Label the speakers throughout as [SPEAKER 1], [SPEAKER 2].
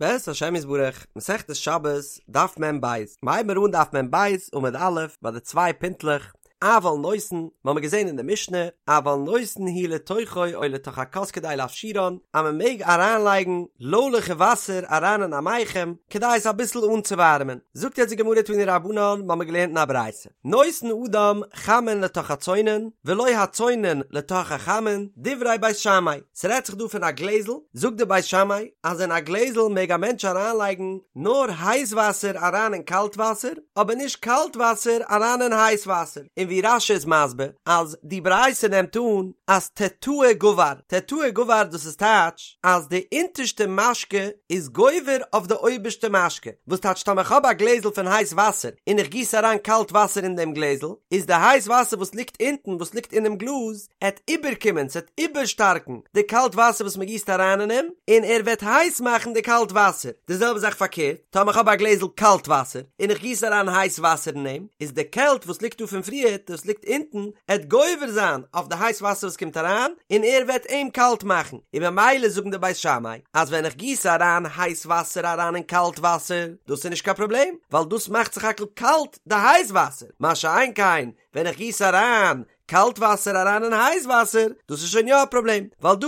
[SPEAKER 1] בעזרת השם יתברך, מסכת שבת, דף מ ב, מ'הייבן מיר אן דף מ ב, עמוד א', ביי די צוויי פינטלעך, אבל נותן, מ'האמיר געזען אין די משנה, אבל נותן הוא לתוכו או לתוך הכוס כדי להפשירן, אז מ'מעג אריינלייגן לוילעכע וואסער אריין אין א מיחם, כדי עס אביסל אנצואווארעמען. זאגט יעצט די גמרא תנו רבנן, מ'האמיר געלערנט אין א ברייתא, נותן אדם חמין לתוך הצונן, ולא הצונן לתוך החמין, דברי בית שמאי. ס'רעדט זיך דא פון א גלעזל, זאגט די בית שמאי אז אין א גלעזל מעג א מענטש אריינלייגן נאר הייס וואסער אריין אין קאלט וואסער, אבער נישט קאלט וואסער אריין אין הייס וואסער, און ווי רש"י איז מסביר אז די ברייתא נעמט אן אז תתאה גבר, תתאה גבר דאס איז טייטש אז די אונטערשטע משקה איז גובר אויף די אויבערשטע משקה, וואס טייטש טאמער כ'האב א גלעזל פון הייס וואסער און איך גיס אריין קאלט וואסער אין דעם גלעזל, איז די הייס וואסער וואס ליגט אונטן וואס ליגט אינעם גלאז עט איבערקומען, ס'עט איבערשטארקן די קאלט וואסער וואס מ'גיסט אריין אין אים, און ער וועט הייס מאכן די קאלט וואסער. די זעלבע זאך פארקערט, טאמער כ'האב א גלעזל קאלט וואסער, און איך גיס אריין הייס וואסער אין אים, איז די קעלט וואס ליגט דא פון פריערט, וואס ליגט אונטן, עט גובר זיין אויף די הייס וואסער וואס קומט אריין, און ער וועט אים קאלט מאכן. און ממילא זאגן די בית שמאי, אז ווען איך גיס אריין הייס וואסער אריין אין קאלט וואסער, דאס איז נישט קיין פראבלעם, ווייל דאס מאכט סך הכל קאלט די הייס וואסער, מה שאין כן ווען איך גיס אריין קאלט וואסער אריין אין הייס וואסער, דאס איז שוין יא א פראבלעם, ווייל דא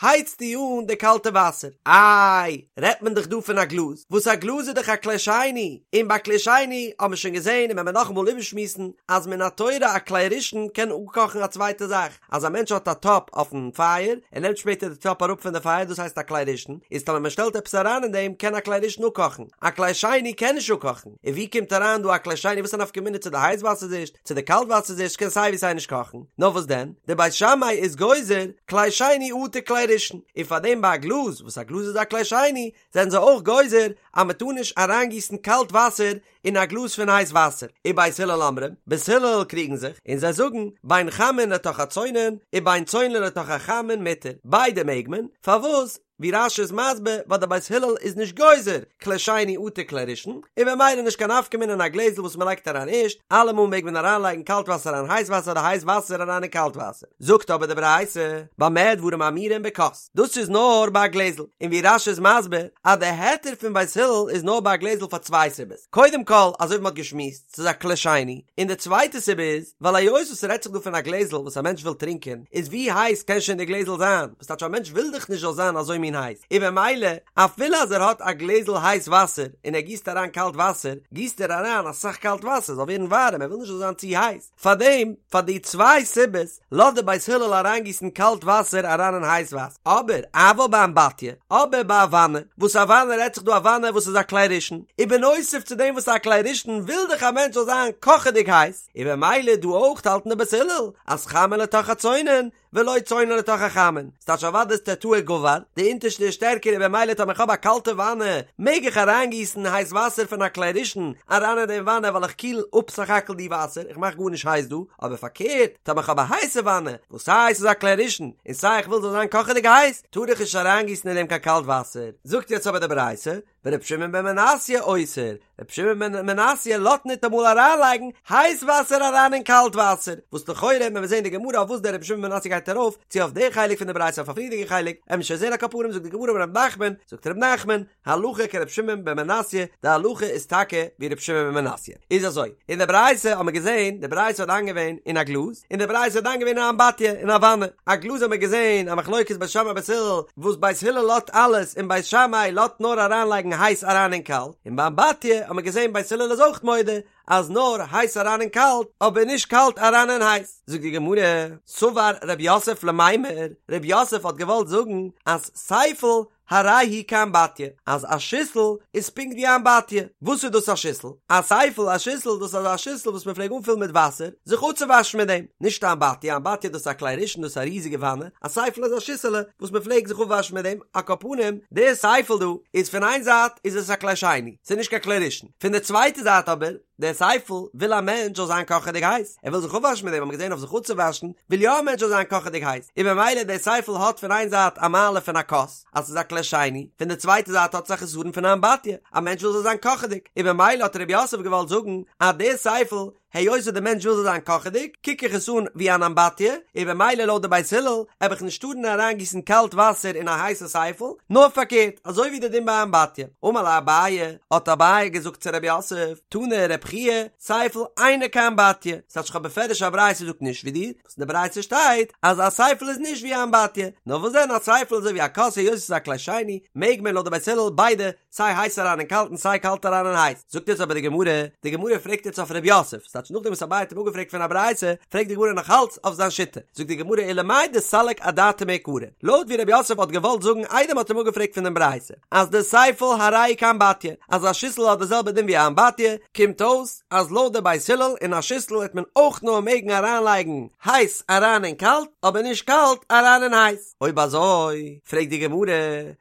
[SPEAKER 1] הייצטו אן די קאלטע וואסער. איי, רעדט מען דאך דא פון א גלאז, וואס א גלאז איז דאך א כלי שני, און ביי כלי שני האבן מיר שוין געזען און וועלן מיר נאכאמאל איבערשמועסן, אז מן התורה א כלי ראשון קען אפקאכן א צווייטע זאך, אז א מענטש האט א טאפ אויפן פייער, ער נעמט שפעטער די טאפ אראפ פון די פייער, דאס הייסט א כלי ראשון, איז טאמער מען שטעלט עפעס אריין אין דעם קען א כלי ראשון אפקאכן, א כלי שני קען נישט אפקאכן, און ווי קומט אריין דא א כלי שני, וואס איז א נפקא מינה צו די הייס וואסער איז ערשט, צו די קאלט וואסער איז ערשט קען סיי ווי סיי נישט קאכן, נאר וואס דען, די בית שמאי איז גוזר כלי שני אטו כלי ראשון, און פאר דעם ביי א גלאז, וואס א גלאז איז א כלי שני, זענען זיי אויך גוזר אז מען טאר נישט אריינגיסן קאלט וואסער אין א גלאז פון הייס וואסער, ובית הלל אומרים, בית הלל קריגן זיך, און זיי זאגן, בין חמין לתוך הצונן, ובין צונן לתוך החמין מותר, ביידע מעג מען, פארוואס? ווי רש"י איז מסביר ווייל די בית הלל איז נישט גוזר כלי שני אטו כלי ראשון, און במילא נישט קיין נפקא מינה אין א גלעזל וואס מען לייגט אריין ערשט, אלעמאל מעג מען אריינלייגן קאלט וואסער אריין הייס וואסער אדער הייס וואסער אריין אין קאלט וואסער. זאגט אבער די ברייתא, במה דברים אמורים בכוס, דאס איז נאר ביי א גלעזל, און ווי רש"י איז מסביר אז די היתר פון בית הלל איז נאר ביי א גלעזל פאר צוויי סיבות, קודם כל אזוי ווי מען האט געשמועסט, ס'איז א כלי שני, און די צווייטע סיבה איז, ווייל היות וואס ס'רעדט זיך דא פון א גלעזל וואס א מענטש וויל טרינקען, איז ווי הייס קען שוין די גלעזל זיין, וואס טייטש א מענטש וויל דאך נישט זאל זיין אזוי מין הייס, און במילא אפילו אז ער האט א גלעזל הייס וואסער און ער גיסט אריין קאלט וואסער, גיסט ער אריין אסאך קאלט וואסער זאל ווערן ווארעם, ער וויל נישט זאל זיין צו הייס. פארדעם, פאר די צוויי סיבות, לאזט די בית הלל אריינגיסן קאלט וואסער אריין אין הייס וואסער. אבער, אבל באמבטיה, אבער ביי א וואנע, וואס א וואנע רעדט זיך דא א וואנע וואס איז א כלי ראשון, ובנוסף צו דעם וואס איז א כלי ראשון וויל דאך א מענטש זאל זיין קאכעדיג הייס, און במילא דא אויך האלטן די בית הלל אז חמין לתוך הצונן, ולא צונן לתוך החמין, ס'טייטש אוודאי איז תתאה גבר, די אונטערשטע איז שטערקער און במילא טאמער איך האב א קאלטע וואנע מעג איך אריינגיסן הייס וואסער פון א כלי ראשון אריין אין דעם וואנע ווייל איך קיל אפ סך הכל די וואסער איך מאך גארנישט הייס דא, אבער פארקערט טאמער איך האב א הייסע וואנע וואס סיי ס'איז א כלי ראשון און סיי איך וויל זאל זיין קאכעדיג הייס טאר איך נישט אריינגיסן אין דעם קיין קאלט וואסער, זאגט יעצט אבער די ברייתא ור' שמעון בן מנסיא אוסר, ר' שמעון בן מנסיא לאזט ניטאמאל אריינלייגן הייס וואסער אריין אין קאלט וואסער, וואס לכאורה ווען מיר זעהן די גמרא אויף וואס דער ר' שמעון בן מנסיא גייט ארויף, צו אויף די חלק פון די ברייתא אויף א פריערדיגע חלק, עמיר שוין זעהן על כל פנים זאגט די גמרא אמר ר' נחמן, זאגט ר' נחמן, הלכה כר' שמעון בן מנסיא, די הלכה איז טאקע ווי ר' שמעון בן מנסיא. איז אזוי, אין די ברייתא האט מען געזעהן, די ברייתא האט דן געווען אין א גלאז, און די ברייתא האט דן געווען אין א אמבטיה, אין א וואנע, א גלאז האט מען געזעהן א מחלוקת בית שמאי בית הלל, וואס בית הלל לאזט אלעס און בית שמאי לאזט נאר אריינלייגן הייס אריין אין קאלט, און ביי אמבטיה האט מען געזען בית הלל איז אויך מודה אז נאר הייס אריין אין קאלט אבער נישט קאלט אריין אין הייס. זאגט די גמרא, סבר רב יוסף למימר, רב יוסף האט געוואלט זאגן אז סייפל הרי הוא כאמבטיה, אז א שיסל איז פונקט ווי א אמבטיה. וואס איז דאס א שיסל? א סייפל, א שיסל, דאס איז אזא שיסל וואס מען פלעג אנפילן מיט וואסער זיך אפצואוואשן מיט דעם. נישט א אמבטיה, א אמבטיה דאס איז א כלי ראשון, דאס איז א ריזיגע וואנע, א סייפל איז א שיסעלע וואס מען פלעג זיך אפוואשן מיט דעם. על כל פנים, דער סייפל דא איז פון איין זייט איז עס א כלי שני, ס'איז נישט קיין כלי ראשון, פון די צווייטע זייט אבער, דער סייפל וויל א מענטש זאל זיין קאכעדיג הייס, ער וויל זיך אפוואשן מיט דעם, האט מען געזען אויף זיך אפצואוואשן, וויל יא א מענטש זאל זיין קאכעדיג הייס, און במילא דער סייפל האט פון איין זייט א מעלה פון א כוס, אז ס'איז א כלי שני, פון די צווייטע זייט האט עס א חסרון פון א אמבטיה, א מענטש וויל זאל זיין קאכעדיג, און במילא האט רב יוסף געוואלט זאגן אז דער סייפל. היות וואס די מענטש וויל זאל זיין קאכעדיג, קוק איך עס אן ווי אן אמבטיה, און במילא לויט די בית הלל, העב איך נישט טארן אריינגיסן קאלט וואסער אין א הייסע סייפל, נאר פארקערט, אזוי ווי די דין ביי אמבטיה. אמר ליה אביי, האט אביי געזאגט צו רב יוסף, תנא רב חייא, סייפל אינו כאמבטיה, ס'טייטש איך האב בפירוש א ברייתא זאגט נישט ווי דיר, וואס אין די ברייתא שטייט אז א סייפל איז נישט ווי א אמבטיה, נאר וואס דען א סייפל איז אזוי ווי א כוס היות עס איז א כלי שני, מעג מען לויט די בית הלל ביידע, סיי הייס אריין אין קאלט און סיי קאלט אריין אין הייס. זאגט יעצט אבער די גמרא, די גמרא פרעגט יעצט אויף ר' יוסף, ס'טייטש נאכדעם וואס אביי האט אים אפגעפרעגט פון א ברייתא, פרעגט די גמרא נאך אלץ אויף זיין שיטה, זאגט די גמרא ולמאי דסליק אדעתיה מעיקרא, לויט ווי ר' יוסף האט געוואלט זאגן איידער מ'האט אים אפגעפרעגט פון דעם ברייתא, אז דסייפל הרי כאמבטיה, אז א שיסל האט די זעלבע דין ווי א אמבטיה, קומט אויס אז לויט די בית הלל אין א שיסל העט מען אויך נאר מעגן אריינלייגן הייס אריין אין קאלט, אבער נישט קאלט אריין אין הייס. אויב אזוי, פרעגט די גמרא,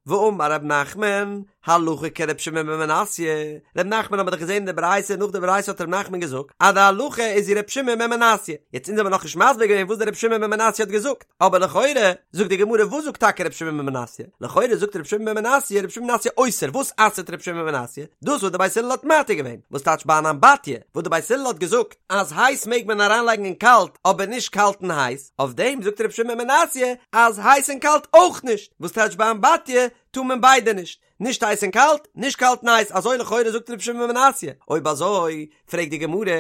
[SPEAKER 1] והאמר ר' נחמן, הלכה כר' שמעון בן מנסיא, ר' נחמן האט מען דאך געזען אין די ברייתא, נאך די ברייתא האט ר' נחמן געזאגט אז די הלכה איז ווי ר' שמעון בן מנסיא, יעצט אונז האבן נאכנישט מסביר געווען וואס דער ר' שמעון בן מנסיא האט געזאגט, אבער לכאורה, זאגט די גמרא וואס זאגט טאקע ר' שמעון בן מנסיא? לכאורה זאגט ר' שמעון בן מנסיא, ר' שמעון בן מנסיא אוסר, וואס אסר'ט ר' שמעון בן מנסיא? דאס וואס די בית הלל האט מתיר געווען, וואס טייטש ביי אן אמבטיה, וואס די בית הלל האט געזאגט אז הייס מעג מען אריינלייגן אין קאלט אבער נישט קאלט אין הייס, אויף דעם זאגט ר' שמעון בן מנסיא אז הייס און קאלט אויך נישט, וואס טייטש ביי אמבטיה טאר מען ביידע נישט, נישט הייס און קאלט, נישט קאלט און הייס, אזוי לכאורה זאגט ר' שמעון בן מנסיא, אויב אזוי פרעגט די גמרא,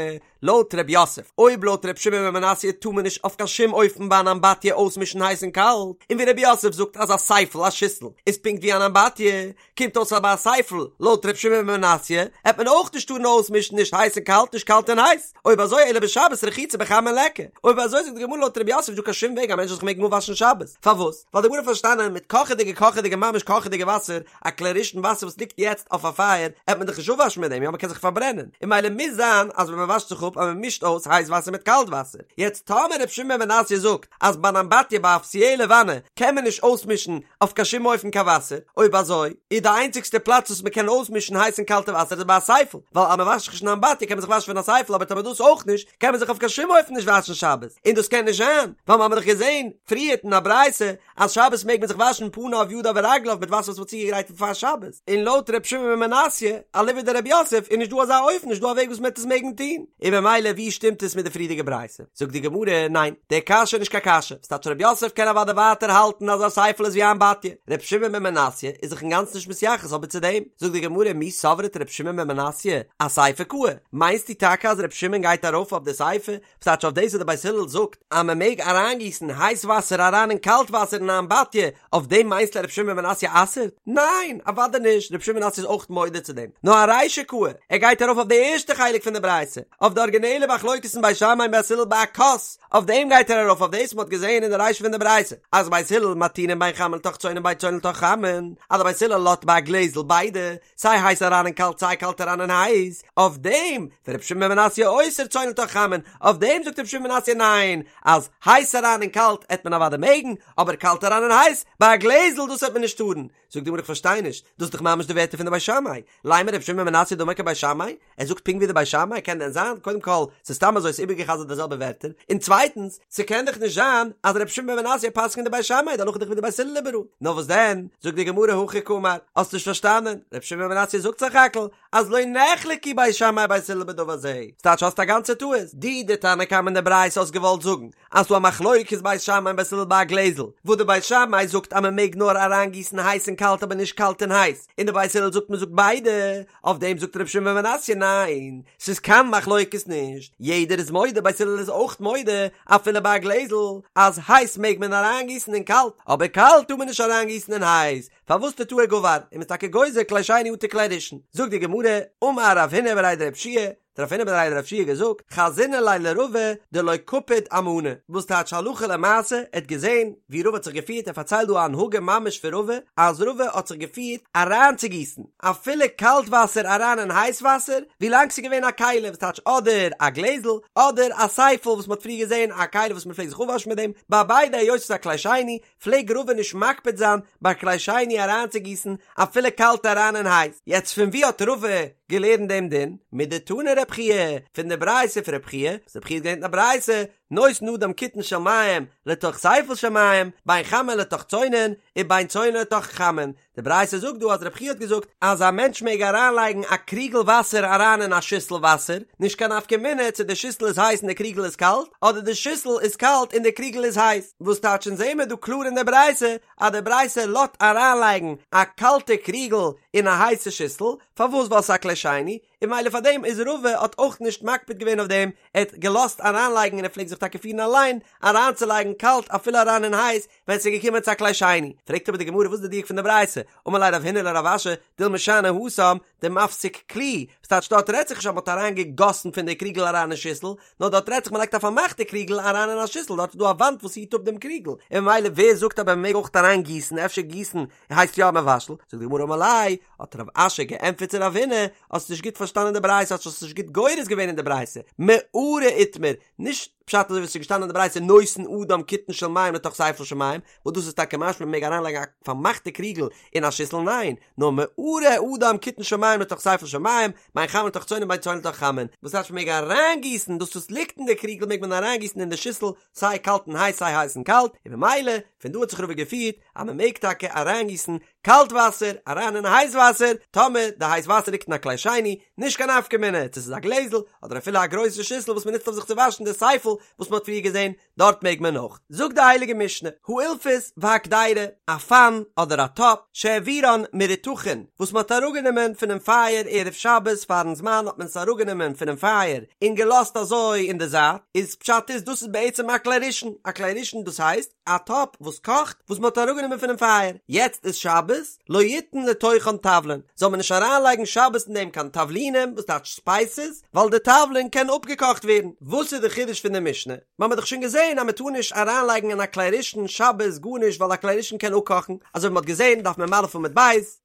[SPEAKER 1] לויט ר' יוסף, אויב לויט ר' שמעון בן מנסיא טאר מען נישט אויף קיין שום אופן ביי אן אמבטיה אויסמישן הייס און קאלט, און ווי ר' יוסף זאגט אז א סייפל, א שיסל, איז פונקט ווי אן אמבטיה, קומט אויס אז ביי א סייפל, לויט ר' שמעון בן מנסיא, העט מען אויך נישט טארן אויסמישן נישט הייס און קאלט נישט קאלט און הייס, אויב אזוי אלא בשבת רחיצה בחמין ליכא, אויב אזוי זאגט די גמרא לויט ר' יוסף איז נישטא קיין שום וועג א מענטש זאל זיך מעגן אפוואשן שבת, פארוואס? ווייל די גמרא האט פארשטאנען מיט קאכעדיגע קאכעדיגע ממש קאכעדיגע וואסער, א כלי ראשון וואסער וואס ליגט יעצט אויף א פייער, העט מען דאך נישט אפוואשן מיט דעם, יא מ'קען זיך פארברענען, און ממילא מוז זיין אז ווען מ'וואשט זיך אפ אז מ'מישט אויס הייס וואסער מיט קאלט וואסער, יעצט טאמער ר' שמעון בן מנסיא זאגט אז ביי אן אמבטיה ביי א אפיציעלע וואנע קען מען נישט אויסמישן אויף קיין שום אופן קיין וואסער, אויב אזוי איז די איינציגסטע פלאץ וואס מ'קען אויסמישן הייס און קאלטע וואסער איז ביי א סייפל, ווייל אז מ'וואשט זיך נישט אין אמבטיה קען מען זיך וואשן פון א סייפל אבער טאמער דאס אויך נישט קען מען זיך אויף קיין שום אופן נישט וואשן שבת, און דאס קען נישט זיין ווייל מ'האמיר דאך געזען פריערט אין א ברייתא אז שבת מעג מען זיך וואשן פניו ידיו ורגליו מיט וואסער וואס מ'האט צוגעגרייט פון פאר שבת, און לויט ר' שמעון בן מנסיא, אליבא דר' יוסף, איז נישט דא אזא אופן, נישט דא א וועג וואס מ'העט עס מעגן טון, און במילא ווי שטימט עס מיט די פריערדיגע ברייתא? זאגט די גמרא, ניין, די קשיא איז נישט קיין קשיא, ס'טייטש ר' יוסף קען אוודאי ווייטער האלטן אז א סייפל איז ווי א אמבטיה, ר' שמעון בן מנסיא איז זיך אינגאנצן נישט מתייחס אבער צו דעם, זאגט די גמרא, מי סברת ר' שמעון בן מנסיא אסיפא קאי, מיינסטו טאקע אז ר' שמעון גייט ארויף אויף די סיפא ס'טייטש אויף דאס וואס די בית הלל זאגט אז מען מעג אריינגיסן הייס וואסער אריין אין קאלט וואסער אין א אמבטיה, אויף דעם מיינסטו ר' שמעון בן מנסיא אסר'ט? ניין! אוודאי נישט, ר' שמעון בן מנסיא איז אויך מודה צו דעם, נאר ארישא קאי, ער גייט ארויף אויף די ערשטע חלק פון די ברייתא, אויף די ארגינעלע מחלוקת אין בית שמאי און בית הלל ביי א כוס, אויף דעם גייט ער ארויף אויף דאס מען האט געזען אין די רישא פון די ברייתא אז בית הלל מתירין בין חמין לתוך צונן בין צונן לתוך חמין, אז די בית הלל לאזט ביי א גלעזל ביידע, סיי הייס אריין אין קאלט סיי קאלט אריין אין הייס, אויף דעם ור' שמעון בן מנסיא אוסר צונן לתוך חמין, אויף דעם זאגט ר' שמעון בן מנסיא ניין, אז הייס אריין אין קאלט עט מען אוודאי מעגן, אבער קאלט אריין אין הייס, ביי א גלעזל דאס עט מען נישט טארן. זאגט די גמרא איך פארשטיי נישט, דאס איז דאך ממש די ווערטער פון די בית שמאי, לימא ר' שמעון בן מנסיא דאמר כבית שמאי, ער זאגט פונקט ווי די בית שמאי, קען דען זיין? קודם כל, ס'איז סתם אזוי ס'איז איבערגע'חזר'ט די זעלבע ווערטער, און צווייטנס, ס'קען דאך נישט זיין אז ר' שמעון בן מנסיא פסק'נט די בית שמאי, די הלכה איז דאך ווי די בית הלל איבעראל. נאר וואס דען, זאגט די גמרא הכי קאמר, האסט נישט פארשטאנען, ר' שמעון בן מנסיא זאגט סך הכל אז לא נחלקו בית שמאי ובית הלל בדבר זה, ס'טייטש האסט א גאנצע טעות, דו די תנא קמא אין די ברייתא האסט געוואלט זאגן אז ס'דא א מחלוקת בית שמאי און בית הלל ביי א גלעזל, וואס די בית שמאי זאגט אז מ'מעג נאר אריינגיסן הייס אין קאלט אבער נישט קאלט אין הייס, און די בית הלל זאגט מ'זאגט ביידע, אויף דעם זאגט ר' שמעון בן מנסיא ניין, ס'איז קיין מחלוקת נישט, יעדער איז מודה, בית הלל איז אויך מודה, אפילו ביי א גלעזל, אז הייס מעג מען אריינגיסן אין קאלט, אבער קאלט טאר מען נישט אריינגיסן אין הייס, פארוואס תתאה גבר, און מ'איז טאקע גוזר כלי שני אטו כלי ראשון. זאגט די גמרא, אמר רב הונא בריה דרב יהושע, האט רב הונא בריה דרב יהושע געזאגט, חזינא ליה לרבא דלא קפיד אמנא, וואס טייטש הלכה למעשה, ער האט געזען ווי רבא האט זיך געפירט, ער פארציילט דא א הנהגה ממש פון רבא, אז רבא האט זיך געפירט אריינצוגיסן אפילו קאלט וואסער אריין אין הייס וואסער, ווילאנג ס'איז געווען א כלי, וואס טייטש אדער א גלעזל, אדער א סייפל וואס מ'האט פריער געזען, א כלי וואס מ'פלעגט זיך אפוואשן מיט דעם, ביי ביידע היות ס'איז א כלי שני, פלעג רבא נישט מקפיד זיין ביי כלי שני אריינצוגיסן אפילו קאלט אריין אין הייס, יעצט פון ווי האט רבא געלערנט דעם דין? מדתני רב חייא, פון די ברייתא פון רב חייא, וואס רב חייא האט געלערנט אין א ברייתא, נותן אדם קיתון של מים לתוך ספל של מים, בין חמין לתוך צונן, ובין צונן לתוך חמין, די ברייתא זאגט דא אז רב חייא האט געזאגט אז א מענטש מעג אריינלייגן א קריגל וואסער אריין אין א שיסל וואסער, נישט קיין נפקא מינה צו די שיסל איז הייס און די קריגל איז קאלט, אדער די שיסל איז קאלט און די קריגל איז הייס, וואס טייטש אונז זעמער דא קלאר אין די ברייתא אז די ברייתא לאזט אריינלייגן א קאלטע קריגל אין א הייסע שיסל, פארוואס ווייל ס'איז א כלי שני, און ממילא פאר דעם איז רבא האט אויך נישט מקפיד געווען אויף דעם, ער האט געלאזט אריינלייגן און ער פלעגט זיך טאקע פירן אליין אריינצולייגן קאלט אפילו אריין אין הייס ווען ס'איז געקומען צו א כלי שני. פרעגט אבער די גמרא וואס איז די דיוק פון די ברייתא, אמר ליה רב הונא לרב אשי, דילמא שאני התם דמפסיק כלי, וואס טייטש דארט רעדט זיך נישט אז מ'האט אריינגעגאסן פון די קריגל אריין אין שיסל, נאר דארט רעדט זיך מ'לייגט א פארמאכטע קריגל אריין אין א שיסל, דארט איז דא א וואנט וואס היט אפ דעם קריגל, און ממילא ווער זאגט אז מ'מעג אויך אריינגיסן, אפשר גיסן הייסט יא מבשל, זאגט די גמרא אמר ליה, האט רב אשי געענטפערט צו רב הונא, האסט נישט גוט פארשטאנען די ברייתא, האסט נישט גוט גורס געווען אין די ברייתא, מערה איתמר, נישט פשט אזוי ווי עס איז געשטאנען אין די ברייתא נותן אדם קיתון של מים לתוך ספל של מים, וואס דאס איז טאקע משמע מען מעג אריינלייגן א פארמאכטע קריגל אין א שיסל, ניין, נאר מערה אדם קיתון של מים לתוך ספל של מים, בין חמין לתוך צונן בין צונן לתוך חמין, וואס טייטש מען מעג אריינגיסן דאס וואס ליגט אין די קריגל מעג מען אריינגיסן אין די שיסל סיי קאלט און הייס סיי הייס און קאלט, און ממילא פון דא האט זיך רבא געפירט אז מען מעג טאקע אריינגיסן קאלט וואסער אריין אין הייס וואסער, טאמער די הייס וואסער ליגט אין א כלי שני, נישט קיין נפקא מינה צו ס'איז א גלעזל אדער אפילו א גרויסע שיסל וואס מ'נוצט אויף זיך צו וואשן די ספל וואס מ'האט פריער געזען, דארט מעג מען אויך. זאגט די הייליגע משנה, האילפס והקדירה, א פאן אדער א טאפ, שהעבירן מרותחין, וואס מ'האט אראפגענומען פונעם פייער ערב שבת פארן זמן האט מען עס אראפגענומען פונעם פייער און געלאזט אזוי אין די זייט, איז פשט איז דאס איז בעצם א כלי ראשון, א כלי ראשון דאס הייסט, א טאפ וואס קאכט וואס מען האט אראפגענומען פונעם פייער, יעצט איז שבת, לא יתן לתוכן תבלין, זאל מען נישט אריינלייגן שבת אין דעם קיין תבלינים, וואס טייטש ספייסעס, ווייל די תבלין קען אפגעקאכט ווערן. וואס איז די חידוש פון די משנה? מיר האבן דאך שוין געזען אז מען טאר נישט אריינלייגן אין א כלי ראשון שבת גארנישט ווייל א כלי ראשון קען אפקאכן, אזוי ווי מען האט געזען דף מ"א עמוד ב',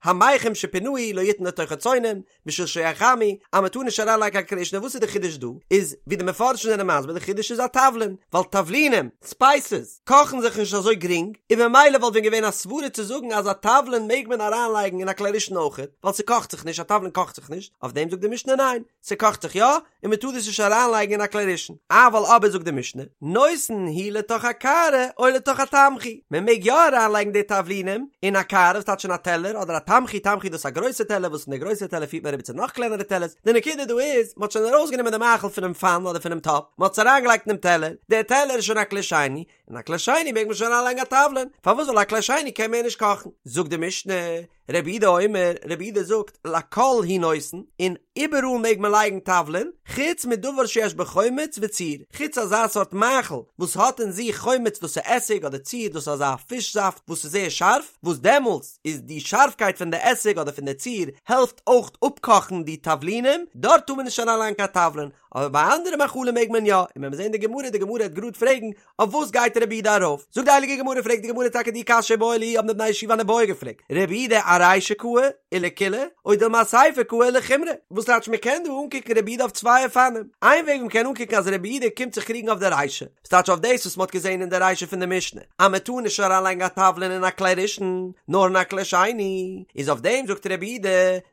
[SPEAKER 1] המיחם שפינהו לא יתן לתוכו צונן, בשביל שיחמו, אז מען טאר נישט אריינלייגן קיין כלי ראשון, וואס איז די חידוש דא? איז ווי די מפרשים זענען מסביר די חידוש איז א תבלין, ווייל תבלינים, ספייסעס, קאכן זיך נישט אזוי גרינג, און ממילא וואלט ווען געווען א סברה צו זאגן אז א תבלין מעג מען אריינלייגן אין א כלי ראשון אויכעט, ווייל ס'קאכט זיך נישט, א תבלין קאכט זיך נישט, אויף דעם זאגט די משנה ניין, ס'קאכט זיך יא, און מען טאר דאס נישט אריינלייגן אין א כלי ראשון, אבל אבער זאגט די משנה, נותן הוא לתוך הקערה או לתוך התמחוי, מען מעג יא אריינלייגן די תבלינים אין א קערה, וואס טייטש אין א טעלער, אדער א תמחוי, תמחוי דאס איז א גרויסע טעלער וואס אין די גרויסע טעלער פירט מען אריבער צו נאך קלענערע טעלערס, די נקודה דא איז, מען האט שוין ארויסגענומען די מאכל פונעם פאן אדער פונעם טאפ, מען האט עס אריינגעלייגט אינעם טעלער, דער טעלער איז שוין א כלי שני, אין א כלי שני מעג מען שוין אריינלייגן א תבלין, פארוואס ווייל א כלי שני קען מער נישט קאכן, זאגט די משנה, רבי יהודה אומר, רבי יהודה זאגט, לכל הוא נותן, און איבעראל מעג מען לייגן תבלין, חוץ מדבר שיש בו חומץ וציר, חוץ אזא סארט מאכל וואס האט אין זיך חומץ דאס איז עסיג אדער ציר דאס איז אזא פיש זאפט וואס איז זייער שארף, וואס דעמאלטס איז די שארפקייט פון די עסיג אדער פון די ציר העלפט אויך אפקאכן די תבלינים, דארט טאר מען נישט אריינלייגן קיין תבלין, אבער ביי אנדערע מאכלים מעג מען יא, און ווען מיר זעהן די גמרא, די גמרא וועט גראד פרעגן, אויף וואס גייט רבי יהודה ארויף? זאגט די הייליגע גמרא, פרעגט די גמרא טאקע די קשיא איבעיא להו האבן די בני ישיבה אן איבעיא געפרעגט, רבי יהודה ארישא קאי ולקולא, או דילמא אסיפא קאי ולחומרא, וואס טייטש מען קען דא אנקוקן רבי יהודה אויף צוויי אופנים, איין וועג מען קען אנקוקן אז רבי יהודה קומט זיך קריגן אויף די רישא, וואס טייטש אויף דאס וואס מען האט געזען אין די רישא פון די משנה, אז מען טאר נישט אריינלייגן א תבלין אין א כלי ראשון, נאר אין א כלי שני, איז אויף דעם זאגט רבי יהודה,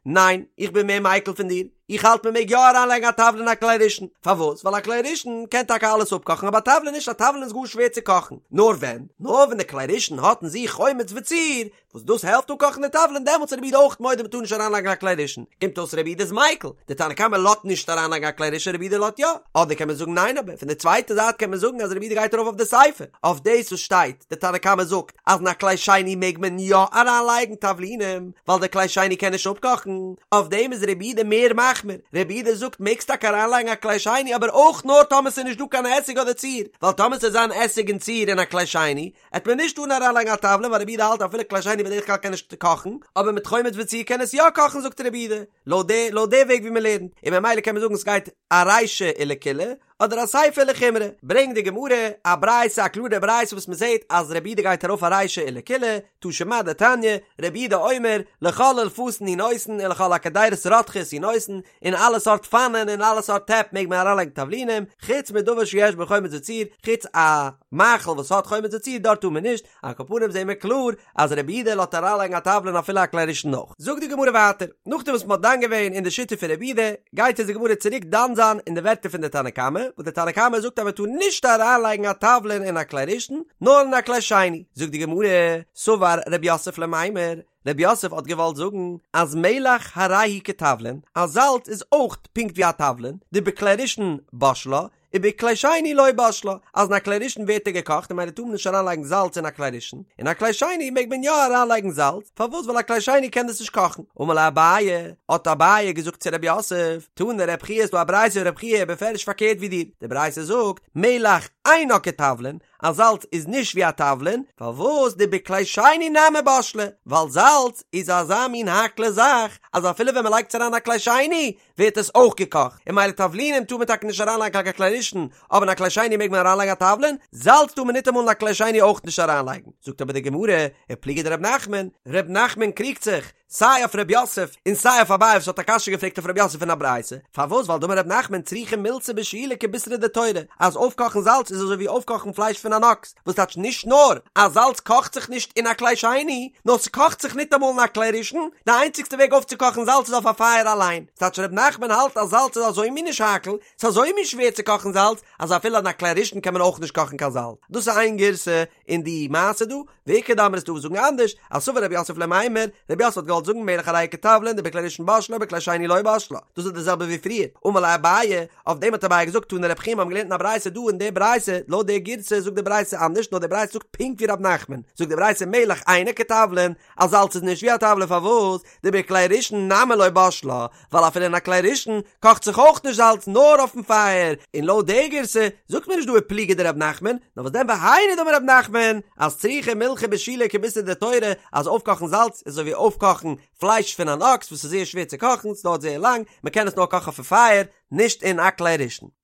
[SPEAKER 1] ניין, איך בין מער מיקל פון דיר, איך האלט מען מעג יא אריינלייגן א תבלין אין א כלי ראשון, פארוואס? ווייל א כלי ראשון קען טאקע אלעס אפקאכן אבער א תבלין נישט, א תבלין איז גאר שווער צו קאכן, נאר ווען? נאר ווען די כלי ראשון האט אין זיך חומץ וציר, וואס דאס העלפט אפקאכן די תבלין, דעמאלטס איז רבי יהודה אויך מודה מ'טאר נישט אריינלייגן א כלי ראשון, קומט אויס רבי יהודה איז מיקל, די תנא קמא לאזט נישט אריינלייגן א כלי ראשון רבי יהודה לאזט יא, אדער קען מען זאגן ניין אבער פון די צווייטע זייט קען מען זאגן אז רבי יהודה גייט ארויף אויף די סיפא, אויף דאס וואס שטייט, די תנא קמא זאגט אז אין א כלי שני מעג מען יא אריינלייגן תבלינים, ווייל די כלי שני קען נישט אפקאכן, אויף דעם איז רבי יהודה מער מחמיר, רבי יהודה זאגט מעגסט טאקע אריינלייגן א כלי שני אבער אויך נאר טאמער ס'איז נישט דא קיין עסיג אדער ציר, ווייל טאמער ס'וועט זיין עסיג און ציר אין א כלי שני, עט מען נישט טארן אריינלייגן א תבלין ווייל רבי יהודה האלט אפילו כלי שני בדרך כלל קען נישט קאכן, אבער מיט חומץ וציר קען עס יא קאכן זאגט רבי יהודה, לויט די לויט די וועג ווי מ'לערנט, און ממילא קען מען זאגן ס'גייט ארישא ולקולא, אדער אסיפא ולחומרא, ברענגט די גמרא א ברייתא א קלארע ברייתא וואס מען זעט אז רבי יהודה גייט ארויף ארישא ולקולא, תא שמע דתניא, רבי יהודה אומר, לכל אילפסין הוא נותן ולכל הקדירות רותחות הוא נותן, אין אלע סארט פאנען און אלע סארט טעפ מעג מען אריינלייגן תבלינים, חוץ מדבר שיש בו חומץ וציר, חוץ א מאכל וואס האט חומץ וציר דארט טאר מען נישט, על כל פנים זעהן מיר קלאר אז רבי יהודה לאזט אריינלייגן א תבלין אפילו א כלי ראשון אויך. זאגט די גמרא ווייטער, נאכדעם וואס מען האט דן געווען אין די שיטה פון רבי יהודה, גייט אונז די גמרא צוריק דן זיין אין די ווערטער פון די תנא קמא. וואס דער תנא קמא זאגט אז מען טאר נישט אריינלייגן א תבלין אין א כלי ראשון, נאר אין א כלי שני. זאגט די גמרא, סבר רב יוסף למימר, רב יוסף האט געוואלט זאגן אז מלח הרי הוא כתבלין, אז זאלץ איז אויך פונקט ווי א תבלין, דבכלי ראשון בשלה, ובכלי שני לא בשלה, אז אין א כלי ראשון ווערט ער געקאכט און ממילא טאר מען נישט אריינלייגן זאלץ אין א כלי ראשון, אין א כלי שני מעג מען יא אריינלייגן זאלץ, פארוואס ווייל א כלי שני קען דאס נישט קאכן. אמר ליה אביי, האט אביי געזאגט צו רב יוסף, תנא רב חייא ס'דא א ברייתא רב חייא בפירוש פארקערט ווי דיר, די ברייתא זאגט, מלח אינה כתבלין, אז זאלץ איז נישט ווי א תבלין, פארוואס דבכלי שני נמי בשלה, ווייל זאלץ איז אזא מין האקלע זאך אז אפילו ווען מ'לייגט עס אריין אין א כלי שני ווערט עס אויך געקאכט, און ממילא תבלינים טאר מען טאקע נישט אריינלייגן קיין כלי ראשון, אבער אין א כלי שני מעג מען אריינלייגן א תבלין, זאלץ טאר מען ניטאמאל אין א כלי שני אויך נישט אריינלייגן. זאגט אבער די גמרא, ופליגא דרב נחמן, ר' נחמן קריגט זיך, סיי אויף ר' יוסף און סיי אויף אביי וואס האט א קשיא געפרעגט אויף ר' יוסף פון א ברייתא, פארוואס ווייל דאמר ר' נחמן צריכה מילתא בשילה כבישרא דתורא, אז אויפקאכן זאלץ איז אזוי ווי אויפקאכן פלייש פון אן אקס, וואס טייטש נישט נאר אז זאלץ קאכט זיך נישט אין א כלי שני, נאר ס'קאכט זיך ניטאמאל אין א כלי ראשון, די איינציגסטע וועג אויפצוקאכן זאלץ איז אויף א פייער אליין, ס'טייטש ר' נחמן האלט אז זאלץ איז אזוי מין נישט האקל, ס'איז אזוי מין שווער צו קאכן זאלץ, אז אפילו אין א כלי ראשון קען מען אויך נישט קאכן קיין זאלץ. דאס איז איין גירסא אין די מעשה דא, ואיכא דאמרי ס'דא וואס זאגן אנדערש, אז סבר רב יוסף למימר, רב יוסף האט געוואלט זאגן מלח הרי הוא כתבלין דבכלי ראשון בשלה ובכלי שני לא בשלה, דאס איז די זעלבע ווי פריער, אמר ליה אביי, אויף דעם האט אביי געזאגט תנא רב חייא מיר האבן געלערנט אין א ברייתא דא אין די ברייתא, לויט די גירסא זאגט די ברייתא אנדערש נאר די ברייתא זאגט פונקט ווי רב נחמן, זאגט די ברייתא מלח אינו כתבלין, אז זאלץ איז נישט ווי א תבלין פארוואס? דבכלי ראשון נמי לא בשלה, ווייל אפילו אין א כלי ראשון קאכט זיך אויך נישט זאלץ נאר אויפן פייער, און לויט די גירסא זאגט מען נישט דא ופליגא דרב נחמן, נאר וואס דען והיינו דאמר רב נחמן אז צריכה מילחא בשילה כבישרא דתורא אז אויפקאכן זאלץ איז אזוי ווי אויפקאכן פלייש פון אן אקס וואס איז זייער שווער צו קאכן, ס'דויערט זייער לאנג, מ'קען עס נאר קאכן אויפן פייער, נישט אין א כלי ראשון.